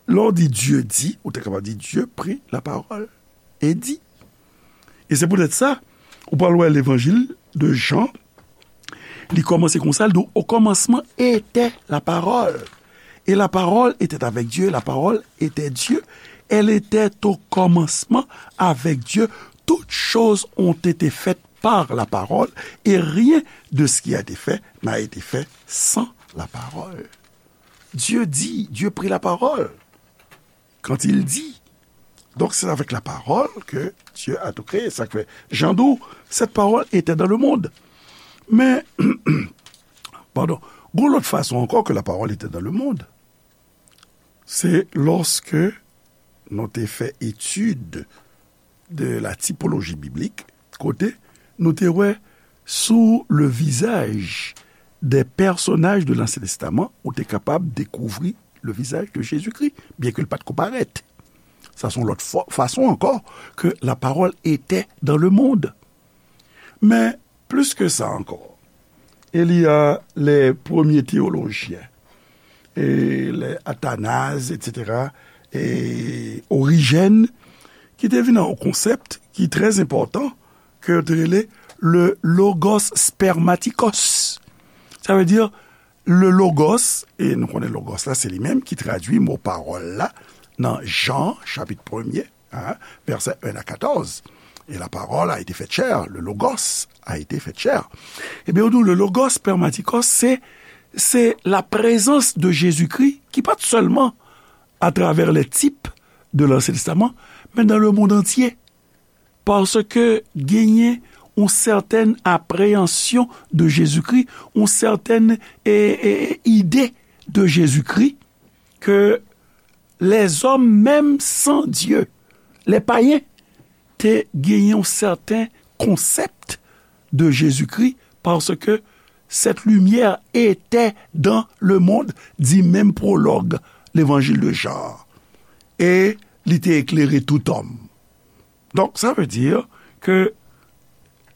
Lè w di Dieu dit, ou te kapab di Dieu prit la parole et dit. E se poutèt sa, ou pral wè levanjil de Jan, li kòmanse konsa, li di, au commencement était la parole. Et la parole était avec Dieu, la parole était Dieu. Elle était au commencement avec Dieu. Toutes choses ont été faites par la parole, et rien de ce qui a été fait n'a été fait sans la parole. Dieu dit, Dieu prit la parole quand il dit. Donc, c'est avec la parole que Dieu a tout créé. Sa k fè, Jan di w, cette parole était dans le monde. Men, padon, gon lòt fason ankò ke la parole était dans le monde. Se lòske nou te fè etid de la typologie biblique, kote nou te wè sou le visage des personnages de l'Ancien Testament, ou te kapab dekouvri le visage de Jésus-Christ, byen ke l pa t ko parèt. Sa se yon lòt fwa, fason ankò ke la parole était dans le monde. Men, plis ke sa ankò, il y a les premiers théologiens, e les Athanase, et cetera, e Origène, ki te vin ak yon konsèp ki trè enpòtan, ke yo te rele le logos spermatikos. Sa vle di, le logos, e nou konnen logos la, se li menm ki tradui mo pawòl la nan Jan, chapit premye, hein, versets un à quatorze. Et la parole a été faite chair, le logos a été fait chair. Ebyen, ou di, le logos spermatikos, se, se la présence de Jésus-Christ, ki pa t sèlman à travers les types de l'Ancien Testament, men dans le monde entier. Paske genyen yon sètèn apreyansyon de Jezikri, yon sètèn, e, e, ide de Jezikri, ke lèzòm, menm san Dye, les païens, te genyen yon sèten konsèp de Jezikri, paske cette lumière était dans le monde, di menm pwològ Levanjil de Jan an, e li te eklere tout òm. Donc, ça veut dire que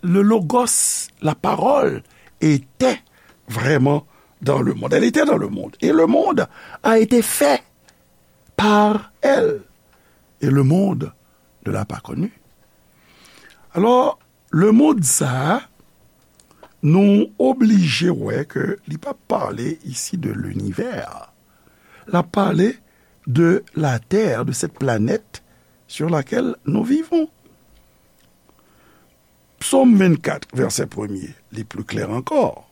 le Logos, la parole, était vraiment dans le monde. Elle était dans le monde. Et le monde a été fait par elle. Et le monde ne l'a pas connue. Alors, le monde, ça, nou oblije wè ke li pa pale ici de l'univers. L ap pale de la Terre, de cette planète sur laquelle nous vivons. Psaume vingt-quatre, verset premier, li plus clair encore.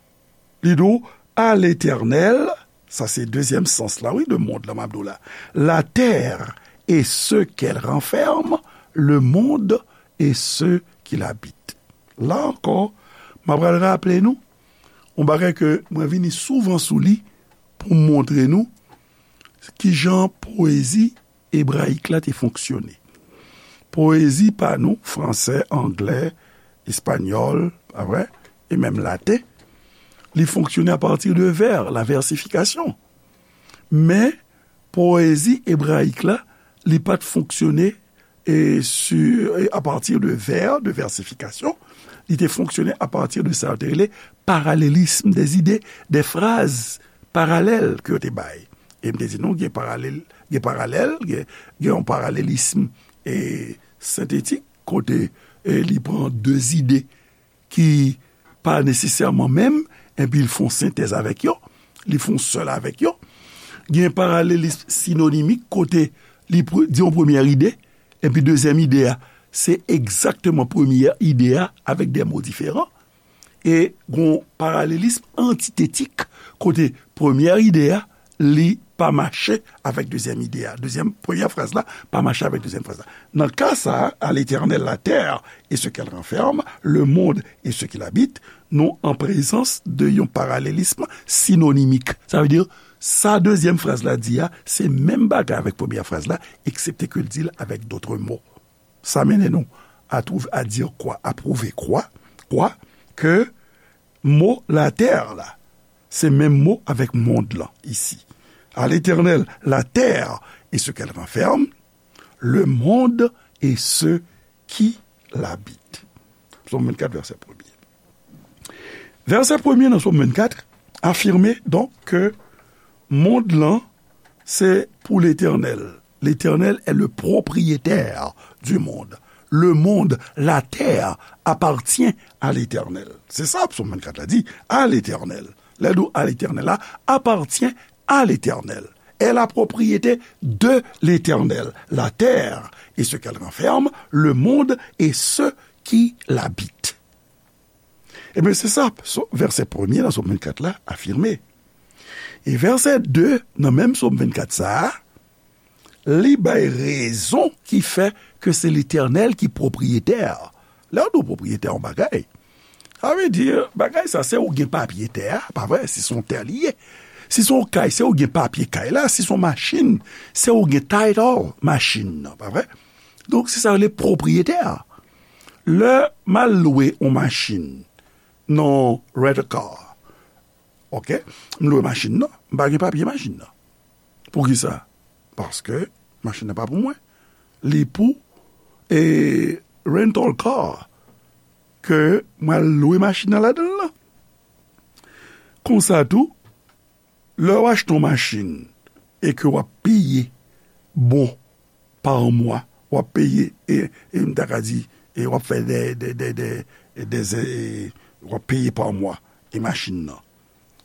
Li di w, à l'Éternel, sa se dezyèm sans la, wi, de monde la, m ap di w la. La terre et ce qu'elle renferme, le monde et ceux qui l'habitent. La encore, m ap pral raple nou yon bagay ke mwen vini souvan sou li pou m montre nou kijan poezi ebrayik la te fonksyone. Poezi pa nou, fransè, anglè, espanyòl, pa vre, e menm laten, li fonksyone apati de vè, la versification. Men, poezi ebrayik la, li pa t fonksyone e sur, e à partir de vers, de versification, li te fonksyone à partir de sa yo te rele paralelism des idées, des phrases parallèles ke yo te bay. E m te di nou, gen paralèl, gen paralèl, gen, gen yon paralelism e sentetik, kote e li pran de zide ki pa nesesèman menm, epi l fè yon sentèz avèk yo, li fè yon sèl avèk yo. Gen paralelism sinonimik, kote li pre-, di yon premyè ide, epi dezyèm ide a, se egzakteman premyè ide a avèk de mo diferan. E gen yon paralelism antitetik, kote premyè ide a, li pa mache avèk dezyèm ide a. Dezyèm, premyè fraz la pa mache avèk dezyèm fraz la. Nan ka sa a, à l'Éternel la terre et ce qu'elle renferme, le monde et ceux qui l'habitent, nou an prezans de yon paralelism sinonimik. Sa vle di, sa dezyèm fraz la di a, se menm bagay avèk premyè fraz la, eksepte ke l di l avèk dòt mo. Sa mennen nou à trouver, à dire quoi, à prouver quoi, quoi, ke mo latè la, se menm mo avèk mond lan isi. À l'Éternel, la terre et ce qu'elle renferme, le monde et ceux qui l'habitent. Psaume vingt-quatre, verset premier. Vèsè premye nan Sòm vennkat afime donk ke mond lan se pou Letènèl. L'Éternel est le propriétaire du monde. Le monde, la terre, appartient à l'Éternel. Se sa Sòm vennkat la di, à l'Éternel. Lè l di w à l'Éternel la, appartient à l'Éternel. Est la propriété de l'Éternel. La terre et ce qu'elle renferme, le monde et ceux qui l'habitent. Ebyen, se sa, so-, vèsè premye nan Sòm vennkat la afime. E vèsè de nan menm Sòm vennkat sa a, li bay rezon ki fè ke se Letènèl ki pwopriyetè. Lè w di w pwopriyetè yon bagay, sa vle di, bagay sa, se ou gen papye tè a, pa vre? Si se yon tè li ye. Si se yon kay, se ou gen papye kay la. Si se yon machin, se ou gen title machin nan, pa vre? Donk, se sa yo rele pwopriyetè. Lè m al lwe yon machin nan rent a car, oke, m lwe machin nan, m pa gen papye machin nan. Poukisa? Paske machin nan pa pou mwen. Li pou, e, rental car ke m al lwe machin nan ladan l lan. Konsa tou, lè w achte yon machin e ke w ap peye bon pa mwa, w ap peye, e, e m ta ka di, e w ap fè de, de, de, de, de, e, w ap peye pa mwa, e machin nan.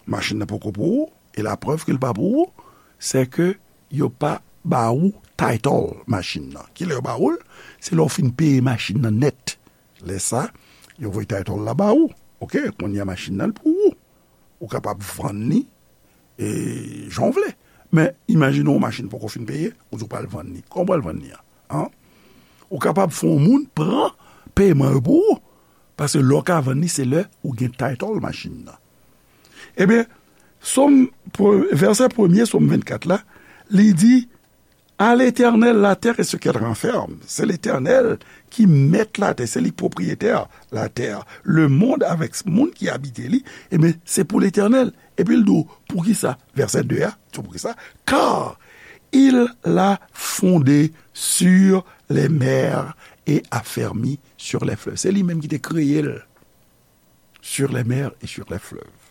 Machin nan poko pou ou, e laprèv ke l pa pou ou, se ke yo pa ba ou title machin nan. Kilè yo ba ou l? Se lè w fin peye machin nan nèt. Lè sa, yo voye title la ba ou. Oke, kounye a machin nan l pou ou. Ou kapab vann li, e, jan w vle. Men, imajine w machin poko fin peye, ou di w pral vann li. Kòman w pral vann li a? An? Ou kapab fè yon moun pran peman yo pou ou. Paske lè w ka vann li, se lè ou gen title machin nan. Ebyen, Sòm, pre-, vèsè premye Sòm vennkat la, li di, à l'Éternel la terre et ce qu'elle renferme. Se Letènèl ki mèt latè, se li k pwopriyetè latè. Le monde avèk moun ki abite li, ebyen, se pou Letènèl. Epi l di w, poukisa? Vèsè de a, di w poukisa? Car il l'a fondée sur les mers et affermi sur les fleuves. Se li menm ki te kreye l, sur les mers et sur les fleuves.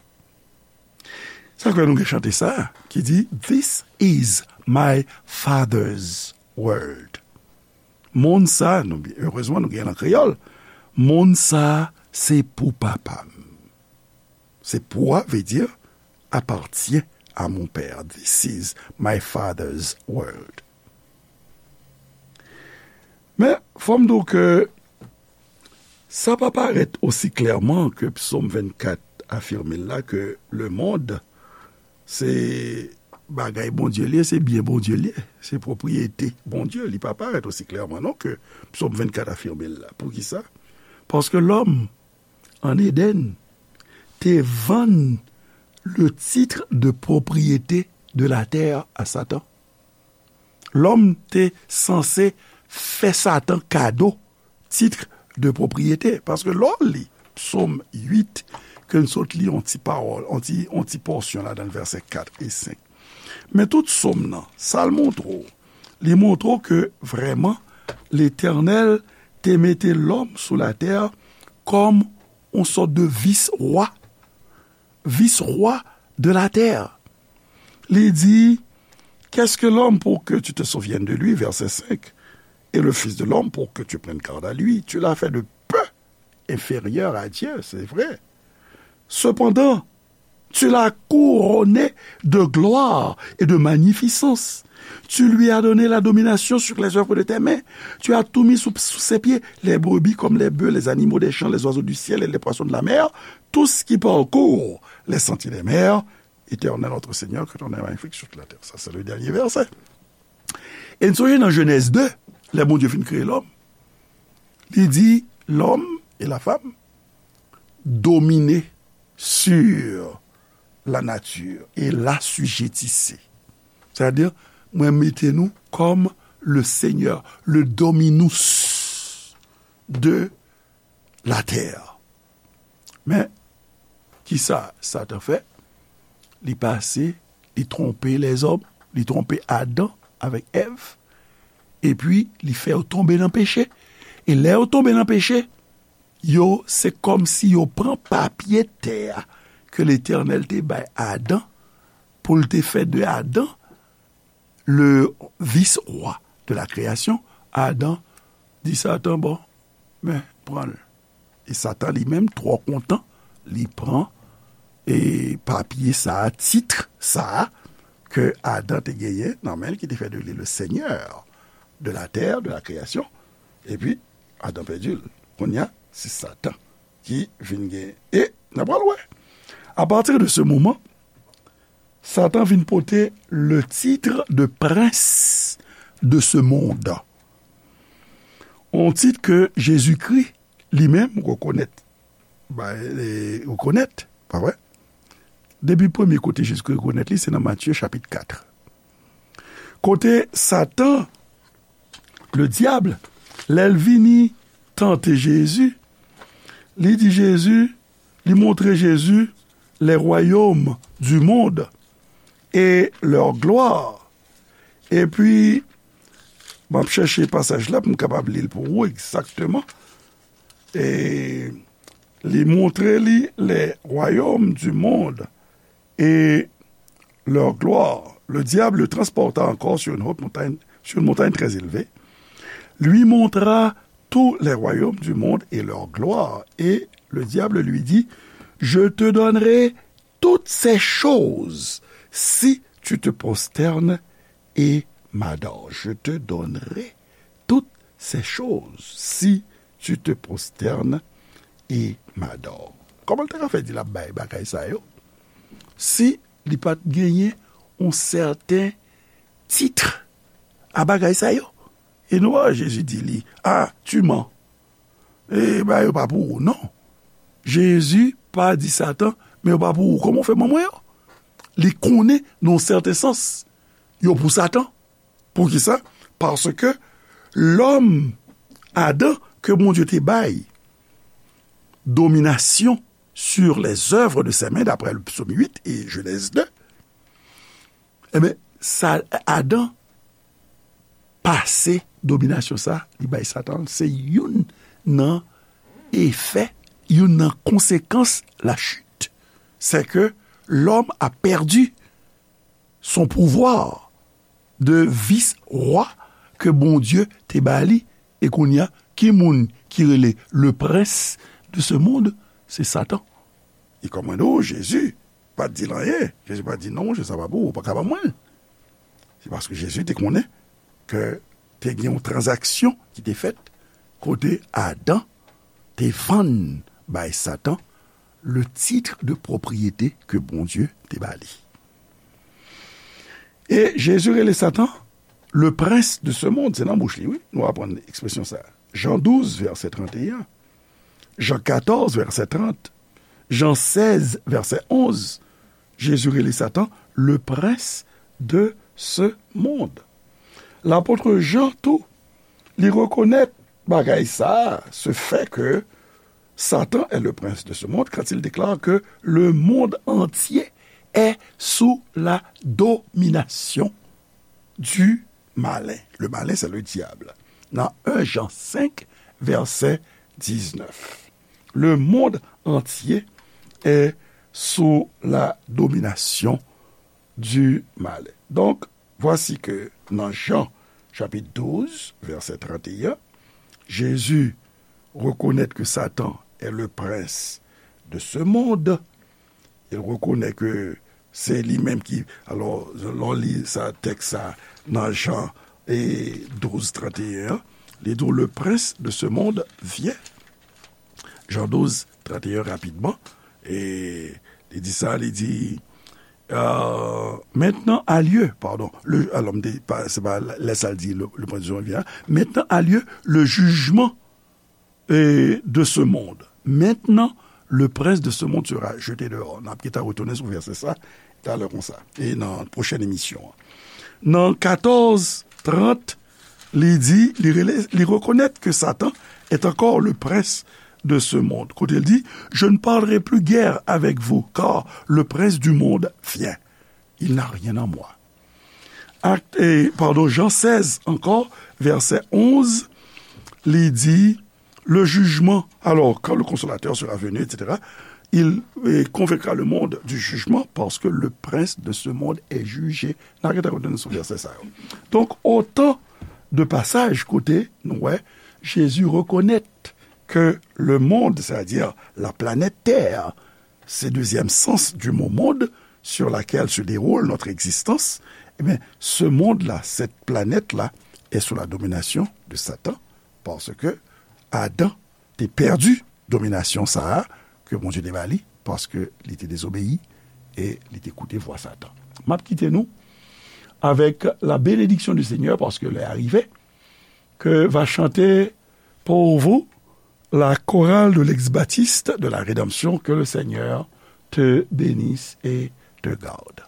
Sa fè nou gen chante sa ki di, "This is my Father's world." Monn sa, nou, erezman, nou gen nan kreyòl. Monn sa, se pou papa m. Se pou a, vle di, appartient à mon père. This is my Father's world. Men, fò m di w ke sa pa parèt osi klèman ke Psaume vingt-quatre afime l la, ke lemonn se bagay Bondye li ye, se byen Bondye li ye, se pwopriyete Bondye. Li pa parèt osi klèman non ke Psaume vingt-quatre afime l la. Poukisa? Paske lòm, an Eden, te vann le titre de propriété de la terre à Satan. Lòm te sanse fè Satan kado tit de pwopriyete. Paske lè w li Psaume huit, ke n sot li yon ti pawòl, yon ti, yon ti pòsyon ladan l, vèsè kat e senk. Men tout Psaume nan, sa l montre w? Li montre w ke vrèman, Letènèl te mete lòm sou latè kòm yon sòt de vis-wa, vis-wa de la terre. Li di, "Qu'est-ce que l'homme pour que tu te souviennes de lui?" Verset cinq. "Et le fils de l'homme pour que tu prennes garde à lui? Tu l'as fait de peu inférieur à Dieu, c'est vrai. Cependant, tu l'as couronné de gloire et de magnificence. Tu lui as donné la domination sur les œuvres de tes mains. Tu as tout mis sous, sous ses pieds, les brebis comme les bœufs, les animaux des champs, les oiseaux du ciel et les poissons de la mer, tout ce qui parcourt les sentiers des mers. Éternel notre Seigneur, que ton nom est magnifique sur toute la terre." Sa se le dènye vèsè. E n sonje nan Jenèz de, lè Bondye fin kreye lòm, li di, "L'homme et la femme dominent sur la nature et l'assujettissent." Sètadi, mwen mete nou kòm le Seigneur, le dominus de la terre. Men, kisa Satan fè? Li pase, li twonpe lèzòm, li twonpe Adan avèk Èv, epi li fè yo tonbe nan peche. E lè yo tonbe nan peche, yo, se kòmsi yo pran papye tè a ke Letènèl te bay Adan pou l te fè de Adan le vice-roi de la création. Adan di Satan, "Bon, men, pran l." E Satan li menm, twò kontan, li pran, e, papye sa a, tit sa a, ke Adan te genyen nan men l, ki te fè de li le seigneur de la terre, de la création. Epi, Adan pèdi l. Kounye a, se Satan ki vin genyen. E, n ap pral wè. A partir de ce moment, Satan vin pote le titre de prince de ce monde. Yon tit ke Jezikri li menm rekonèt. Ba, e, rekonèt, pa vre? Depi premye kote Jezikri rekonèt li, se nan Matye chapit kat. Kote Satan, le dyab, lè l vini tante Jezi, li di Jezi, li montre Jezi les royaumes du monde et leur gloire. Epi, m ap chèche pasaj la pou m kapab li l pou ou egzakteman. E li montre li les royaumes du monde et leur gloire. Le diable le transporta encore sur une haute montagne, sur une montagne très élevée, lui montra tous les royaumes du monde et leur gloire. Et le diable lui dit, je te donnerai toutes ces choses si tu te prosternes et m'adores. Je te donnerai toutes ces choses si tu te prosternes et m'adores. Kòman l ta ka fè di l ap bay bagay sa yo si li pa t genyen yon sèten tit a bagay sa yo? E nou wè Jezi di li, ah, tu mens. E bagay yo pa pou ou, non. Jezi pa di Satan, men yo pa pou ou. Kòman w fè ban mwen yo? Li konnen, nan yon sèten sans, yo pou Satan. Poukisa? Paske lòm, Adan, ke Bondye te bay dominasyon sur les œuvres de ses mains, d'après le psaume huit et Genèse deux, enben, sa, Adan ase dominasyon sa, li bay Satan, se youn nan efè, youn nan konsekans lachit. C'est que l'homme a perdu son pouvoir de vis-roi ke Bondye te ba li. E kounye a, ki moun ki rele le prince de ce monde? Se Satan. E kòm mwen di w, Jezi pa t di l anyen. Jezi pa t di, "Non, monchè, sa pa pou ou, ou pa ka ban mwen l." Se paske Jezi te konnen ke te gen yon tranzaksyon ki te fèt kote Adan te vann bay Satan le titre de propriété ke Bondye te ba li. E Jezi rele Satan le prince de ce monde. Se nan bouch li, wi, nou aprann ekspresyon sa. Jan douz, vèsè trannteyen, Jan katòz, vèsè trant, Jan sèz, vèsè onz, Jezi rele Satan le prince de ce monde. Lapot Jan tou, li rekonèt bagay sa, ce fait que Satan est le prince de ce monde, quand il déclare que le monde entier est sous la domination du malin. Le malin, c'est le diable. Nan en Jan senk, vèsè diznèf. Le monde entier est sous la domination du malin. Donk, vwasi ke nan Jan, chapit douz, vèsè trannteyen, Jezi rekonèt ke Satan est le prince de ce monde. Il reconnaît que se li menm ki, alò, lè w li sa, tèks sa, nan Jan, e, douz, trannteyen an, li di w, le prince de ce monde vient. Jan douz, trannteyen, rapidman. E li di sa, li di, euh, maintenant a lieu, pardon, le, alò, m te, pa, se pa lè sa l di, le, le prince de ce monde vient, maintenant a lieu le jugement, euh, de ce monde. Maintenant, le prince de ce monde sera jeté dehors. N ap gentan retounen sou vèsè sa talè konsa, e nan pwochèn emisyon an. Nan katòz trant, li di, li rele, li rekonèt ke Satan est encore le prince de ce monde. Kote l di, je ne parlerai plus guère avec vous, car le prince du monde vient. Il n'a rien en moi. Ak, e, padon, Jan sèz ankò, vèsè onz, li di, le jugement, alors, quand le Consolateur sera venu, et cetera, il, e, convaincra le monde du jugement parce que le prince de ce monde est jugé. N a gentan retounen sou vèsè sa yo. Donk, otan de pasaj kote nou wè Jezi rekonèt ke le monde, c'est-à-dire la planète Terre, c'est deuxième sens du mot monde sur laquelle se déroule notre existence, eh bien, ce monde-là, cette planète-là, est sous la domination de Satan, paske Adan te pèdi dominasyon sa a ke Bondye te ba li, paske li te dezobeyi e li te koute vwa Satan. M ap kite nou avec la bénédiction du Seigneur, paske lè a rive, que va chanter pour vous la chorale de l'ex-baptiste de la rédemption. Que le Seigneur te bénisse et te garde.